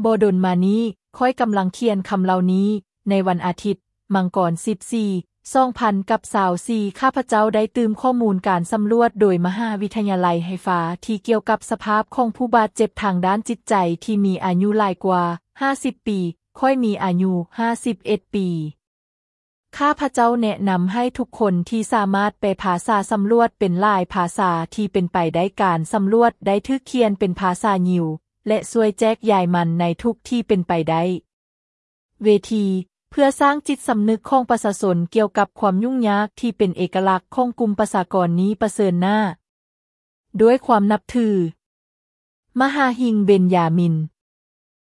ບໍ່ດົນມານີ້, ຂ້ອຍກຳລັງຂຽນຄຳເຫຼົ່ານີ້. ໃນວັນອາທິດ, ມັງກອນສິບສີ່ ສອງພັນຊາວສີ່ ຂ້າພະເຈົ້າໄດ້ຕື່ມຂໍ້ມູນການສຳຫຼວດໂດຍມະຫາວິທະຍາໄລໄຮຟາ ທີ່ກ່ຽວກັບສະພາບຂອງຜູ້ບາດເຈັບທາງດ້ານຈິດໃຈທີ່ມີອາຍຸຫຼາຍກວ່າຫ້າສິບປີ. ຂ້ອຍມີອາຍຸຫ້າສິບເອັດປີ. ຂ້າພະເຈົ້າແນະນຳໃຫ້ທຸກຄົນທີ່ສາມາດແປພາສາສຳຫຼວດເປັນຫຼາຍພາສາທີ່ເປັນໄປໄດ້. ການສຳຫຼວດໄດ້ຖືກຂຽນເປັນພາສາຢິວ ແລະ ຊ່ວຍແຈກຢາຍມັນໃນທຸກທີ່ເປັນໄປໄດ້. ເວທີ ເພື່ອສ້າງຈິດສຳນຶກຂອງປະຊາຊົນກ່ຽວກັບຄວາມຫຍຸ້ງຍາກທີ່ເປັນເອກະລັກຂອງກຸ່ມປະຊາກອນນີ້ປະເຊີນໜ້າດ້ວຍຄວາມນັບຖື. ມະຫາຫິງ ເບັນຢາມິນ.